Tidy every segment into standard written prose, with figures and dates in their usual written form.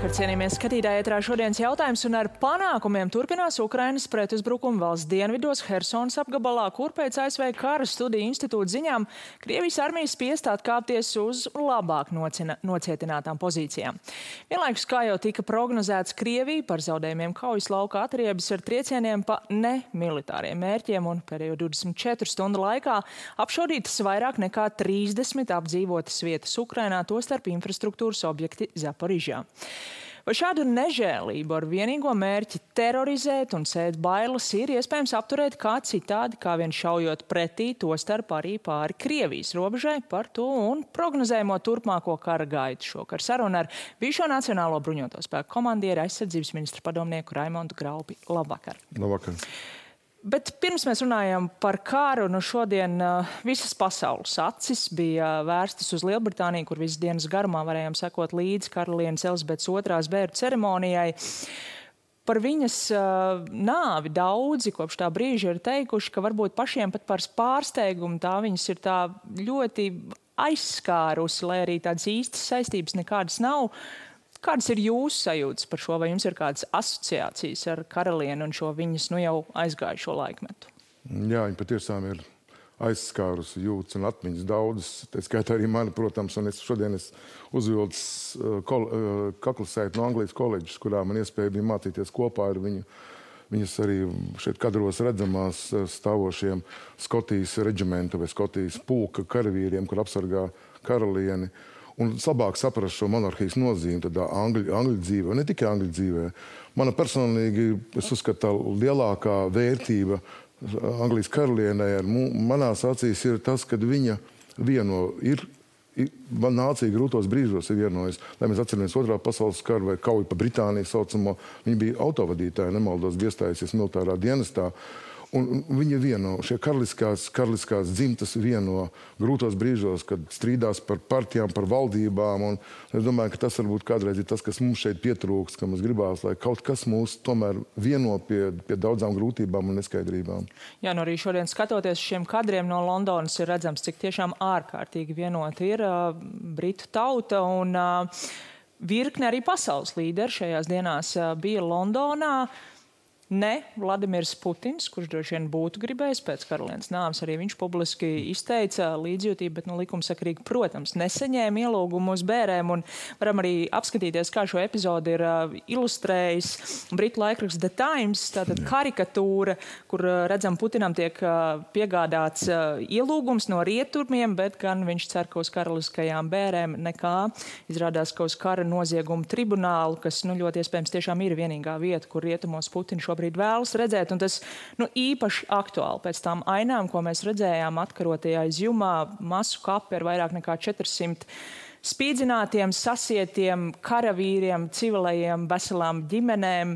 Labvakar, cienījamies skatītāji, ētrā šodienas jautājums un ar panākumiem turpinās Ukrainas pretuzbrukuma valsts dienvidos Hersonas apgabalā, kur pēc ASV kara studiju institūta ziņām Krievijas armijas spiest atkāpties uz labāk nocietinātām pozīcijām. Vienlaikus, kā jau tika prognozēts, Krievija par zaudējumiem kaujas lauka atriebas ar triecieniem pa nemilitāriem mērķiem un pēdējo 24 stundu laikā apšaudītas vairāk nekā 30 apdzīvotas vietas Ukrainā, tostarp infrastruktūras objekti Zaporižā. Vai šādu nežēlību ar vienīgo mērķi terorizēt un sēt bailes ir iespējams apturēt kā citādi, kā vien šaujot pretī, tostarp arī pāri Krievijas robežai? Par to un prognozējumo turpmāko kara gaitu šokar sarunu ar bijušo Nacionālo bruņoto spēku komandieri aizsardzības ministra padomnieku Raimondu Graupi. Labvakar! Labvakar! Bet pirms mēs runājam par kāru, šodien visas pasaules acis bija vērstas uz Lielbritāniju, kur visas dienas garumā varējām sekot līdzi karalienes Elizabetes II bēru ceremonijai. Par viņas nāvi daudzi kopš tā brīža ir teikuši, ka varbūt pašiem pat par pārsteigumu tā viņas ir tā ļoti aizskārusi, lai arī tādas īstas saistības nekādas nav. Kādas ir jūsu sajūtas par šo? Vai jums ir kādas asociācijas ar karalieni un šo viņas jau aizgājušo laikmetu? Jā, viņa patiešām ir aizskārusi jūtas un atmiņas daudzas. Tā skaitā arī mani, protams, un šodien es uzvilcu kaklasēti no Anglijas koledžas, kurā man iespēja bija mācīties kopā ar viņu. Viņas arī šeit kadros redzamās stāvošiem Skotijas reģimenta vai Skotijas pulka karavīriem, kur apsargā karalieni. Un labāk saprast šo monarhijas nozīmi tādā angļu dzīvē, ne tikai angļu dzīvē. Mana personīgi, es uzskatu, lielākā vērtība Anglijas karalienei ar manās acīs ir tas, kad viņa nācija grūtos brīžos ir vienojas. Lai mēs atceramies Otrā pasaules karu vai kauju pa Britāniju saucamo, viņa bija autovadītāja, nemaldos, iestājusies militārā dienestā. Un viņa vieno, šie karaliskās dzimtas vieno grūtos brīžos, kad strīdās par partijām, par valdībām. Un es domāju, ka tas varbūt kādreiz ir tas, kas mums šeit pietrūkst, ka mums gribās, lai kaut kas mūs tomēr vieno pie daudzām grūtībām un neskaidrībām. Jā, arī šodien skatoties šiem kadriem no Londonas ir redzams, cik tiešām ārkārtīgi vienota ir britu tauta un virkne arī pasaules līderi šajās dienās bija Londonā. Ne Vladimirs Putins, kurš droši vien būtu gribējis pēc karalienes nāves, arī viņš publiski izteica līdzjūtību, bet likumsakarīgi, protams, nesaņēma ielūgumu uz bērēm. Un varam arī apskatīties, kā šo epizodi ir ilustrējis britu laikraksts The Times, tātad karikatūra, kur redzam Putinam tiek piegādāts ielūgums no rietumiem, bet gan viņš cer, ka uz karaliskajām bērēm nekā. Izrādās, ka uz kara noziegumu tribunālu, kas ļoti iespējams tiešām ir vienīgā vieta, kur rietumos Putins šobrīd vēlas redzēt, un tas īpaši aktuāli pēc tām ainām, ko mēs redzējām atkarotajā izjumā, masu kapi ar vairāk nekā 400 spīdzinātiem, sasietiem karavīriem, civilajiem, veselām ģimenēm.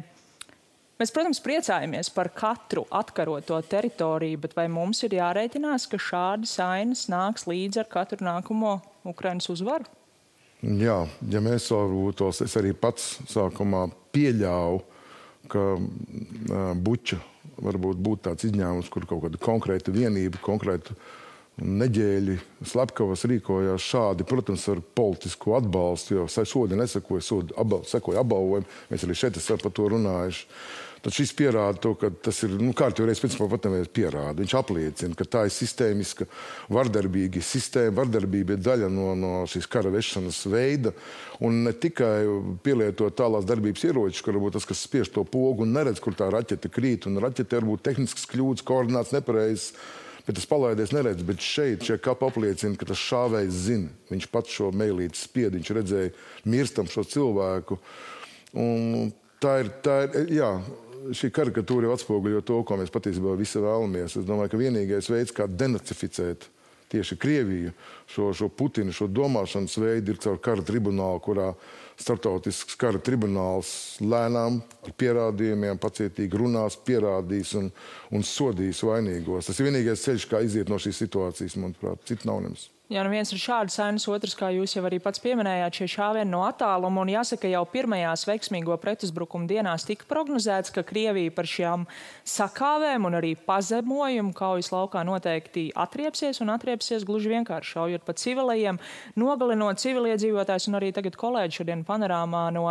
Mēs, protams, priecājamies par katru atkaroto teritoriju, bet vai mums ir jārēķinās, ka šādas ainas nāks līdz ar katru nākamo Ukrainas uzvaru? Jā, ja mēs varbūt tos, es arī pats sākumā pieļauju, ka Buča varbūt būtu tāds izņēmums, kur kaut kāda konkrēta vienība, konkrēta neģēļi slepkavas rīkojās šādi, protams, ar politisku atbalstu, jo sodi nesakoja, sekoja apbalvojumi. Mēs arī šeit esam par to runājuši. Tad šis pierāda to, ka tas ir, kārtīgi principā patamēs pierāda. Viņš apliecina, ka tā ir sistēmiska, vardarbīga sistēma, vardarbība ir daļa no šīs kara vešanas veida, un ne tikai pielietot tālās darbības ieročus, kur varbūt tas, kas spiež to pogu un neredz, kur tā raķete krīt, un raķete varbūt tehniskas kļūdas, koordināts nepareizs, bet tas palaidies neredz, bet šie kapi apliecina, ka tas šāvējs zina. Viņš pats šo meilīti spied, viņš redzēja mirstam šo cilvēku. Un tā ir, jā, šī karikatūra jau atspoguļo to, ko mēs patiesībā visi vēlamies. Es domāju, ka vienīgais veids, kā denacificēt tieši Krieviju, šo Putinu, šo domāšanas veidu ir caur kara tribunālu, kurā starptautisks kara tribunāls lēnām ar pierādījumiem pacietīgi runās, pierādīs un sodīs vainīgos. Tas ir vienīgais ceļš, kā iziet no šīs situācijas, manuprāt, citu nav nems. Jā, nu viens ir šāds sainas, otrs, kā jūs jau arī pats pieminējāt, šie šāvieni no attāluma, un jāsaka, jau pirmajās veiksmīgo pretuzbrukuma dienās tika prognozēts, ka Krievija par šām sakāvēm un arī pazemojumu kaujas laukā noteikti atriepsies un atriepsies gluži vienkārši šaujot pa civilajiem, nogalinot civiliedzīvotājs, un arī tagad kolēģi šodien panorāmā no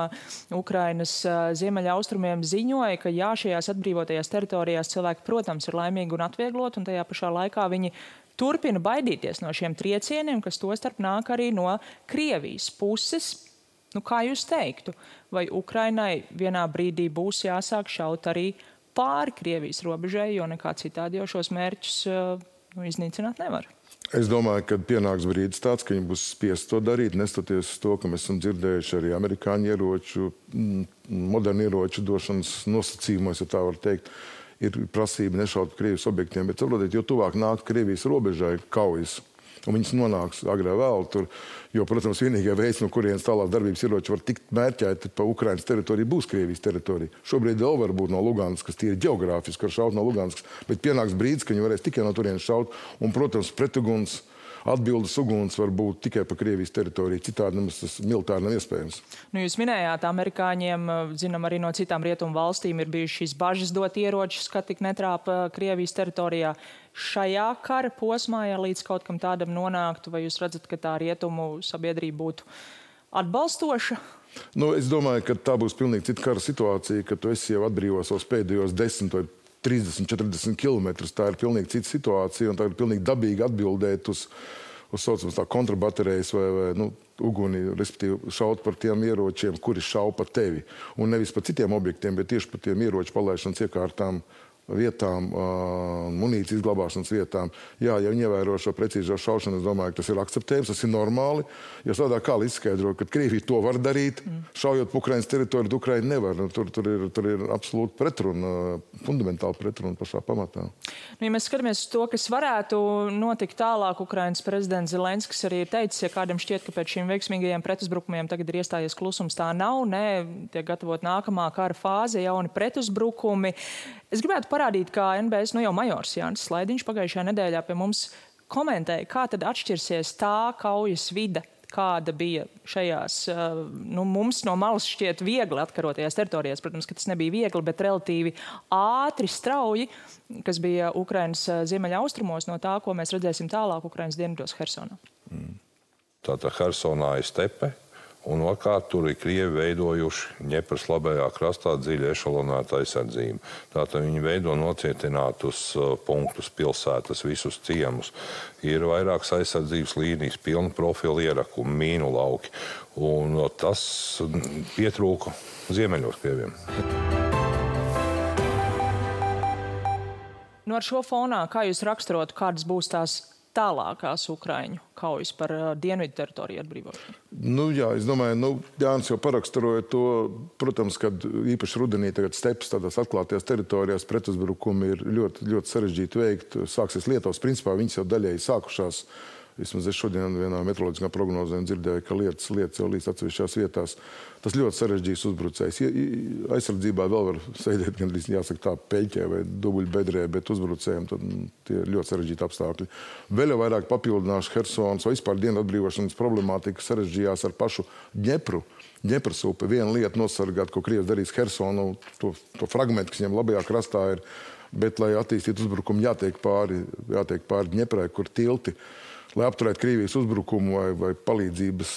Ukrainas ziemeļa austrumiem ziņoja, ka jā, šajās atbrīvotajās teritorijās cilvēki, protams, ir laimīgi un atvieglot, un tajā pašā laikā viņi turpina baidīties no šiem triecieniem, kas tostarp nāk arī no Krievijas puses. Nu, kā jūs teiktu, vai Ukrainai vienā brīdī būs jāsāk šaut arī pāri Krievijas robežai, jo nekā citādi jau šos mērķus iznīcināt nevar? Es domāju, ka pienāks brīdis tāds, ka viņi būs spiest to darīt, nestoties uz to, ka mēs esam dzirdējuši arī amerikāņu ieroču, modernu ieroču došanas nosacījumos, ja tā var teikt. Ir prasība nešaut Krievijas objektiem, bet saprotiet, jo tuvāk nāk Krievijas robežai kaujas, un viņas nonāks agrā vēl tur, jo, protams, vienīgā veids, no kurienes tālāk darbības ieroči var tikt mērķēti pa Ukrainas teritoriju, būs Krievijas teritorija. Šobrīd vēl var būt no Luganskas, kas tīri ģeogrāfiski var šaut no Luganskas, bet pienāks brīdis, ka viņi varēs tikai no turienes šaut, un, protams, pretuguns, atbildes uguns var būt tikai pa Krievijas teritoriju. Citādi nemaz tas militāri nav iespējams. Nu, jūs minējāt, amerikāņiem, zinām, arī no citām rietumu valstīm ir bijušas šīs bažas dot ieročus, ka tik netrāpa Krievijas teritorijā. Šajā kara posmā, ja līdz kaut kam tādam nonāktu, vai jūs redzat, ka tā rietumu sabiedrība būtu atbalstoša? Nu, es domāju, ka tā būs pilnīgi cita kara situācija, ka tu esi jau atbrīvos savus pēdējos 10 vai 30, 40 kilometrus. Tā ir pilnīgi cita situācija, un tā ir pilnīgi dabīgi atbildēt uz saucamās tā kontrabaterijas vai uguni, respektīvi šaut par tiem ieročiem, kuri šauj pa tevi. Un nevis pa citiem objektiem, bet tieši pa tiem ieroču palaišanas iekārtām, vietām, munīcijas glabāšanas vietām. Jā, ja viņi ievēro šo precīzo šaušanu, es domāju, ka tas ir akceptējams, tas ir normāli. Jo tādā kā izskaidro, ka Krievija to var darīt, šaujot pa Ukrainas teritoriju, Ukraina nevar. Tur ir absolūti pretruna, fundamentāli pretruna pašā pamatā. Nu, ja mēs skatāmies uz to, kas varētu notikt tālāk, Ukrainas prezidents Zelenskis arī ir teicis, ja kādam šķiet, ka pēc šīm veiksmīgajiem pretuzbrukumiem tagad ir iestājies klusums, tā nav, tiek gatavot nākamā kara fāze, jauni pretuzbrukumi. Es gribētu parādīt, kā NBS jau majors Jānis Slaidiņš pagājušajā nedēļā pie mums komentēja, kā tad atšķirsies tā kaujas vide, kāda bija šajās, mums no malas šķiet viegli atkarotajās teritorijās. Protams, ka tas nebija viegli, bet relatīvi ātri, strauji, kas bija Ukrainas ziemeļa austrumos no tā, ko mēs redzēsim tālāk Ukrainas dienvidos Hersonā. Tātad Hersonā ir stepe. Un otrkārt, tur ir Krievi veidojuši Ņepras labajā krastā dziļi ešalonētu aizsardzību. Tātad viņi veido nocietinātus punktus, pilsētas, visus ciemus. Ir vairākas aizsardzības līnijas, pilna profila ierakumi, mīnu lauki. Un tas pietrūka ziemeļos Krieviem. Ar šo fonā, kā jūs raksturotu, kādas būs tās tālākās Ukraiņu kaujas par dienvidu teritoriju atbrīvošanu? Jā, es domāju, Jānis jau paraksturoja to, protams, kad īpaši rudenī tagad stepas tādās atklātajās teritorijās pretuzbrukumi ir ļoti, ļoti sarežģīti veikt. Sāksies Lietuvas, principā viņas jau daļēji sākušās. Vismaz es šodien vienā meteoroloģiskā prognozē dzirdēju, ka lietas jau līdz atsevišķās vietās. Tas ļoti sarežģīts uzbrucējs. Aizsardzībā vēl var sēdēt, gandrīz jāsaka tā, peļķē vai dubuļbedrē, bet uzbrucējiem tad tie ir ļoti sarežģīti apstākļi. Vēl jau vairāk papildināšu Hersonas vai vispār dienu atbrīvošanas problemātika sarežģījās ar pašu Ņepru. Ņepras upe. Viena lieta nosargāt, ko Krievs darīs Hersonu, to fragmentu, kas viņam labajā krastā ir, bet, lai attīstītu uzbrukumu, jātiek pāri Ņeprai, kur tilti. Lai apturētu Krievijas uzbrukumu vai palīdzības,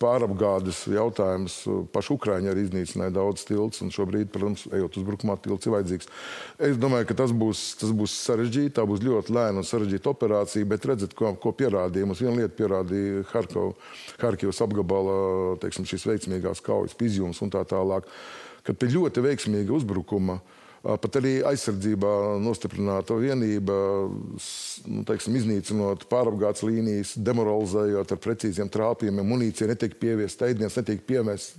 pārapgādes jautājumus, paši Ukraiņi arī iznīcināja daudz tilts, un šobrīd, protams, ejot uzbrukumā, tilts ir vajadzīgs. Es domāju, ka tas būs sarežģīti, tā būs ļoti lēna un sarežģīta operācija, bet redzat, ko pierādīja. Mums viena lieta pierādīja Harkivas apgabala, šīs veiksmīgās kaujas, Izjums un tā tālāk, kad pie ļoti veiksmīga uzbrukuma pat arī aizsardzībā nostiprināta vienība, iznīcinot pārapgādes līnijas, demoralizējot ar precīziem trāpījumiem, munīcija netiek pieviesta, ēdiens netiek piemests,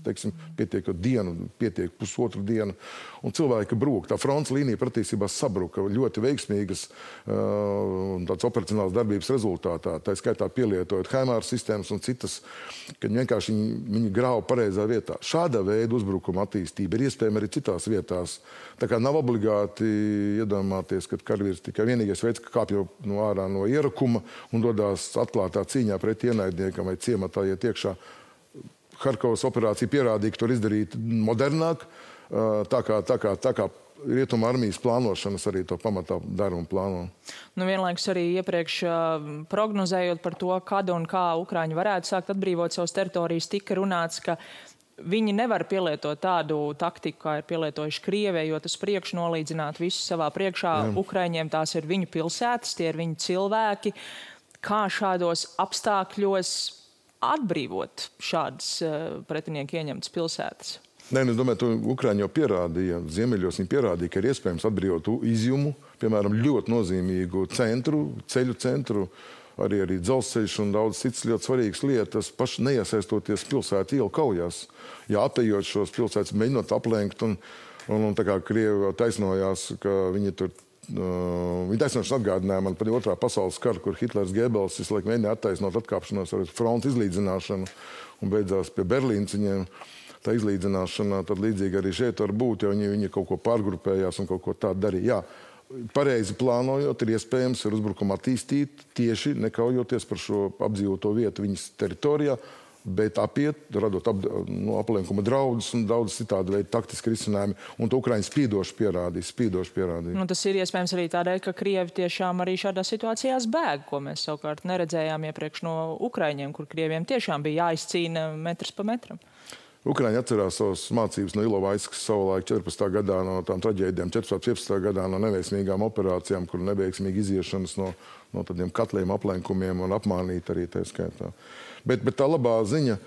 pietiek dienu, pietiek pusotru dienu, un cilvēki brūk. Tā fronts līnija patiesībā sabruka ļoti veiksmīgas tādas operacionālas darbības rezultātā, tā skaitā pielietojot HIMARS sistēmas un citas, kad vienkārši viņi grāva pareizā vietā. Šāda veida uzbrukuma attīstība ir iespējama arī citās vietās. Tā kā nav obligāti iedomāties, ka karavīrs tikai vienīgais veids, ka kāpj no ārā no ierakuma un dodās atklātā cīņā pret ienaidniekam vai ciematā iet iekšā. Harkovas operācija pierādīja, ka tur izdarīt modernāk, tā kā Rietuma armijas plānošanas arī to pamatā dara un plāno. Nu, vienlaikus arī iepriekš prognozējot par to, kad un kā Ukraiņi varētu sākt atbrīvot savas teritorijas, tika runāts, ka viņi nevar pielietot tādu taktiku, kā ir pielietojuši Krievija, jo tas priekš nolīdzināt visu savā priekšā. Ukraiņiem tās ir viņu pilsētas, tie ir viņu cilvēki. Kā šādos apstākļos atbrīvot šādas pretinieku ieņemtas pilsētas? Nē, es domāju, to Ukraiņi jau pierādīja. Ziemeļos viņi pierādīja, ka ir iespējams atbrīvot Izjumu, piemēram, ļoti nozīmīgu centru, ceļu centru, arī dzelzceļš un daudz citas ļoti svarīgas lietas, paši neiesaistoties pilsētu ielu kaujās. Jā, apējot šos pilsētas, mēģinot aplenkt, un tā kā Krievi taisnojās, ka viņi tur, viņi taisnošanas atgādināja man par otrā pasaules karu, kur Hitlers Gebels visu laiku mēģināja attaisnot atkāpšanos ar frontes izlīdzināšanu un beidzās pie Berlīnas viņiem. Tā izlīdzināšana, tad līdzīgi arī šeit var būt, jo viņi kaut ko pārgrupējās un kaut ko tādu darīja. Jā, pareizi plānojot, ir iespējams ar uzbrukumu attīstīt tieši nekaujoties par šo apdzīvoto vietu viņas teritorijā, bet apiet, radot aplenkuma draudus un daudz citādi veidu taktiski risinājumi. Un to Ukraiņi spīdoši pierādīja. Nu, tas ir iespējams arī tādēļ, ka Krievi tiešām arī šādās situācijās bēg, ko mēs savukārt neredzējām iepriekš no Ukraiņiem, kur Krieviem tiešām bija jāizcīna metrs pa metram. Ukraiņi atcerās savas mācības no Ilovaiskas savulaik 14. gadā no tām traģēdijām, 14. gadā no neveiksmīgām operācijām, kur neveiksmīgi iziešanas no tādiem katliem, aplenkumiem un apmānīt arī tā skaitā. Bet tā labā ziņa,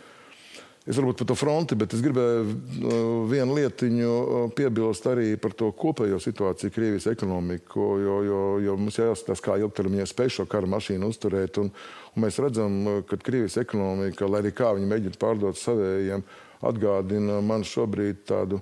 es varbūt par to fronti, bet es gribēju vienu lietiņu piebilst arī par to kopējo situāciju Krievijas ekonomiku, jo mums jāskatās, kā ilgtermiņā spēj šo kara mašīnu uzturēt. Un mēs redzam, ka Krievijas ekonomika, lai arī kā viņi mēģina pārdot savējiem, atgādina man šobrīd tādu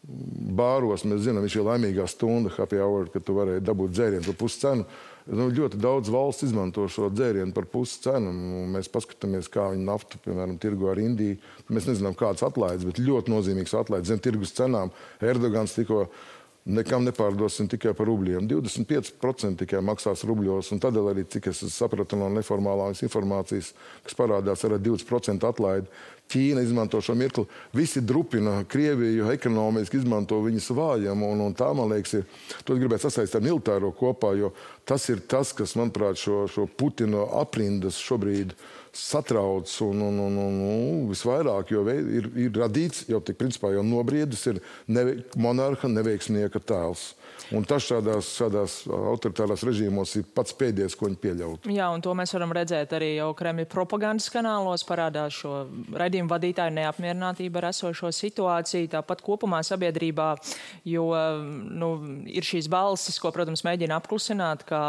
bāros, mēs zinām, viņš ir laimīgā stunda, happy hour, kad tu varēji dabūt dzērienu par pusi cenu. Ļoti daudz valsts izmanto šo dzērienu par pusi cenu. Mēs paskatāmies, kā viņi naftu, piemēram, tirgo ar Indiju. Mēs nezinām, kādas atlaides, bet ļoti nozīmīgs atlaides zem tirgus cenām. Erdogans tikko nekam nepārdosim tikai par rubļiem. 25% tikai maksās rubļos, un tādēļ arī, cik es sapratu no neformālās informācijas, kas parādās ar 20% atlaidi. Ķīna izmanto šo mirkli. Visi drupina Krieviju, ekonomiski izmanto viņas vājumu, un tā, man liekas, to gribētu sasaistīt ar militāro kopā, jo tas ir tas, kas, manuprāt, šo Putina aprindas šobrīd satrauc un visvairāk, jo ir radīts, jau tik principā jau nobriedis, ir monarha neveiksnieka tēls. Un tas šādās autoritārās režīmos ir pats pēdējais, ko viņi pieļaut. Jā, un to mēs varam redzēt arī jau Kremļa propagandas kanālos, parādās šo raidījumu vadītāju neapmierinātību ar esošo situāciju, tāpat kopumā sabiedrībā, jo ir šīs balsis, ko, protams, mēģina apklusināt, kā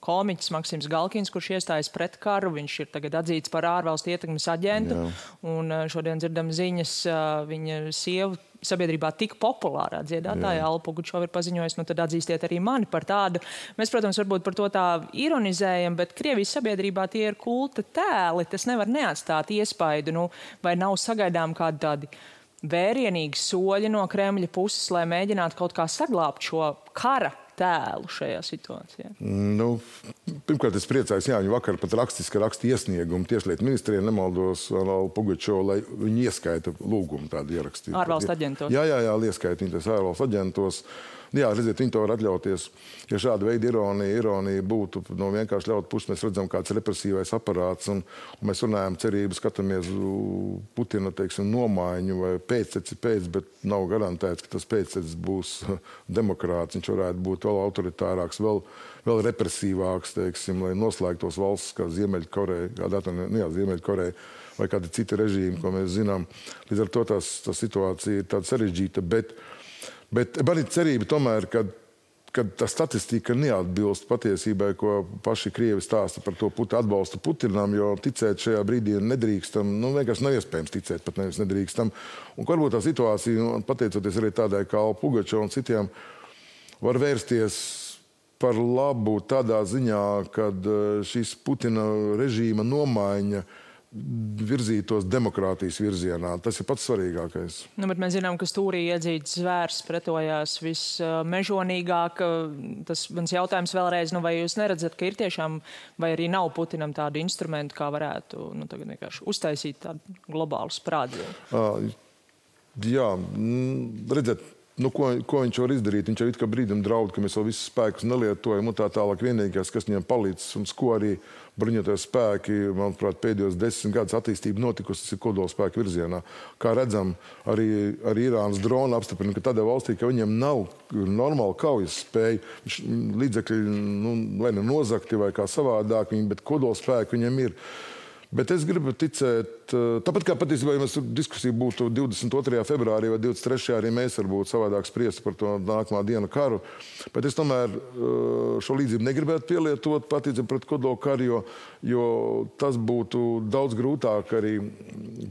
komiķis Maksims Galkins, kurš iestājas pret karu, viņš ir tagad atzīts par ārvalstu ietekmes aģentu, un šodien dzirdam ziņas, viņa sievu sabiedrībā tik populārā dziedātāja Alla Pugačova ir paziņojusi, nu tad atzīstiet arī mani par tādu. Mēs, protams, varbūt par to tā ironizējam, bet Krievijas sabiedrībā tie ir kulta tēli, tas nevar neatstāt iespaidu, vai nav sagaidām kādi tādi vērienīgi soļi no Kremļa puses, lai mēģinātu kaut kā saglābt šo kara tēlu šajā situācijā? Pirmkārt, es priecājos, viņi vakar pat raksta iesniegumu Tieslietu ministrijai, nemaldos Allu Pugačovu, lai viņi ieskaita lūgumu tādu ierakstīt. Ārvalstu aģentos. Jā, ieskaita viņi tās ārvalstu aģentos. Jā, redziet, viņi to var atļauties. Ja šāda veida ironija būtu vienkārši ļaut puses, mēs redzam kāds represīvais aparāts, un mēs runājam cerību, skatāmies Putina, nomaiņu vai pēcteci pēc, bet nav garantēts, ka tas pēctecis būs demokrāts. Viņš varētu būt vēl autoritārāks, vēl represīvāks, lai noslēgtos valsts kā Ziemeļkoreja, Ziemeļkoreja vai kādi citi režīmi, ko mēs zinām. Līdz ar to tā situācija ir tāda sarežģīta, bet man ir cerība tomēr, ka tā statistika neatbilst patiesībai, ko paši Krievi stāsta par to atbalstu Putinam, jo ticēt šajā brīdī nedrīkstam, vienkārši nav iespējams ticēt, pat nevis nedrīkstam. Un varbūt tā situācija, pateicoties arī tādai kā Alla Pugačova un citiem, var vērsties par labu tādā ziņā, kad šīs Putina režīma nomaiņa virzītos demokrātijas virzienā. Tas ir pats svarīgākais. Nu, bet mēs zinām, ka stūrī iedzīts zvērs pretojās vismežonīgāk. Tas mans jautājums vēlreiz, vai jūs neredzat, ka ir tiešām, vai arī nav Putinam tādu instrumentu, kā varētu tagad vienkārši uztaisīt tādu globālu sprādzienu? Jā, redziet, ko viņš var izdarīt? Viņš jau it kā brīdim draud, ka mēs vēl visus spēkus nelietojam un tā tālāk. Vienīgais, kas viņam palīdz un ko arī bruņoties spēki, manuprāt, pēdējos 10 gadus attīstība notikusi, tas ir kodolspēku virzienā. Kā redzam, arī Irānas drona apstiprina, ka tādā valstī, ka viņiem nav normāla kaujas spēja, līdzekļi, vai nozakti vai kā savādāk, bet kodolspēki viņiem ir. Bet es gribu ticēt, tāpat kā patiesībā, ja mēs diskusija būtu 22. februārī vai 23. arī mēs varbūt savādāk spriest par to nākamā dienu karu, bet es tomēr šo līdzību negribētu pielietot patiesībā pret kodolu karu, jo tas būtu daudz grūtāk arī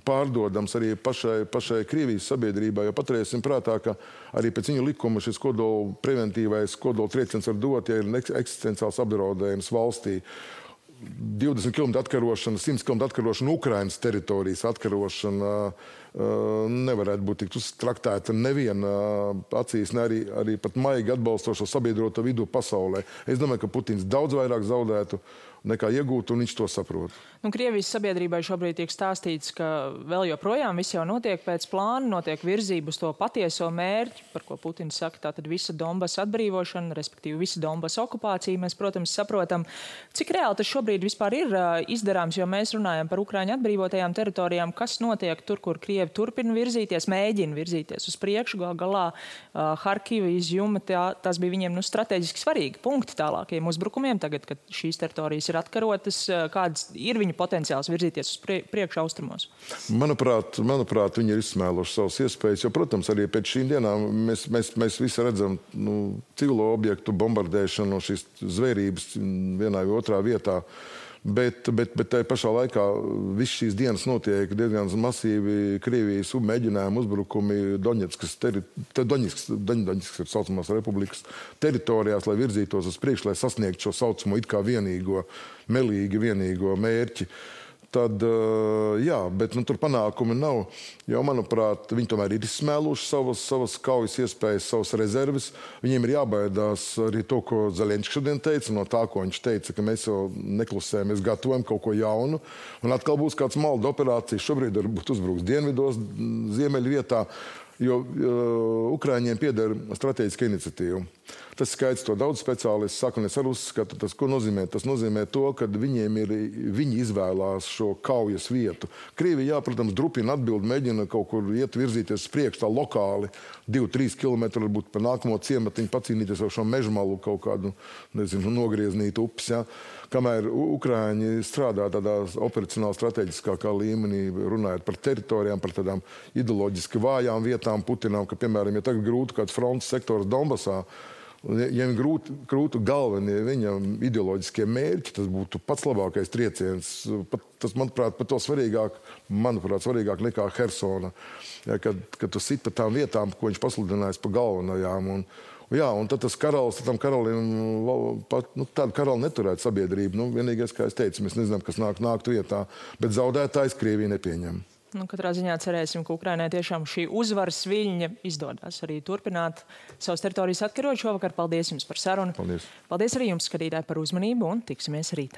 pārdodams arī pašai Krievijas sabiedrībai, jo paturēsim prātā, ka arī pēc viņu likuma šis kodolu preventīvais kodolu trieciens var dot, ja ir eksistenciāls apdraudējums valstī. 20 km atkarošana, 100 km atkarošana, Ukrainas teritorijas atkarošana nevarētu būt tik traktēta neviena acīs, ne arī pat maigi atbalstošo sabiedroto vidu pasaulē. Es domāju, ka Putins daudz vairāk zaudētu nekā iegūt, un viņš to saprot. Krievijas sabiedrībai šobrīd tiek stāstīts, ka vēl joprojām viss jau notiek pēc plāna, notiek virzība uz to patieso mērķi, par ko Putins saka, tātad visa Donbasa atbrīvošana, respektīvi visa Donbasa okupācija. Mēs, protams, saprotam, cik reāli tas šobrīd vispār ir izdarāms, jo mēs runājam par Ukraiņu atbrīvotajām teritorijām, kas notiek tur, kur Krievi turpina virzīties, mēģina virzīties uz priekšu, galā Harkiva, Izjuma, tas bija viņiem strateģiski svarīgi punkti tālākajiem uzbrukumiem tagad, kad šīs teritorijas ir atkarotas, kāds ir viņa potenciāls virzīties uz priekšu austrumos? Manuprāt, viņi ir izsmēluši savas iespējas, jo, protams, arī pēc šīm dienām mēs visi redzam civilo objektu bombardēšanu, šīs zvērības vienā vai otrā vietā. Bet tai pašā laikā viss šīs dienas notiek diezgan masīvi Krievijas mēģinājumi, uzbrukumi Doņetskas ir saucamās republikas teritorijās, lai virzītos uz priekšu, lai sasniegtu šo saucamo it kā vienīgo mērķi. Tad, jā, bet tur panākumi nav, jo, manuprāt, viņi tomēr ir izsmēluši savas kaujas iespējas, savas rezerves. Viņiem ir jābaidās arī to, ko Zelenskis šodien teica, no tā, ko viņš teica, ka mēs jau neklusējam, mēs gatavojam kaut ko jaunu. Un atkal būs kāds malda operācijas, šobrīd varbūt uzbruks dienvidos, ziemeļu vietā, jo Ukraiņiem pieder strateģiska iniciatīva. Tas skaidrs, to daudz speciālisti saka, un es arī uzskatu, tas, ko nozīmē? Tas nozīmē to, ka viņi izvēlās šo kaujas vietu. Krievija, jā, protams, drupina atbildi, mēģina kaut kur iet virzīties priekš tā lokāli, 2-3 kilometri, varbūt pa nākamo ciematiņu pacīnīties ar šo mežmalu kaut kādu, nogrieznītu upes, jā. Kamēr Ukraiņi strādā tādā operacionāli strateģiskākā līmenī, runājot par teritorijām, par tādām ideoloģiski vājām vietām Putinam, ka, piemēram, ja tagad grūti kāds frontes sektors Donbasā, ja viņam grūtu galvenie viņam ideoloģiskie mērķi, tas būtu pats labākais trieciens. Tas, manuprāt, pat to svarīgāk nekā Hersona, ja, kad tu sit pa tām vietām, ko viņš pasludinājis pa galvenajām. Un tad tas karalis, tam karalim, tādu karali neturētu sabiedrību. Vienīgais, kā es teicu, mēs nezinām, kas nāktu vietā, bet zaudētājs Krievija nepieņem. Katrā ziņā cerēsim, ka Ukrainai tiešām šī uzvaras viļņa izdodas arī turpināt savas teritorijas atkarot šovakar. Paldies jums par sarunu. Paldies. Paldies arī jums, skatītāji, par uzmanību un tiksimies rīt.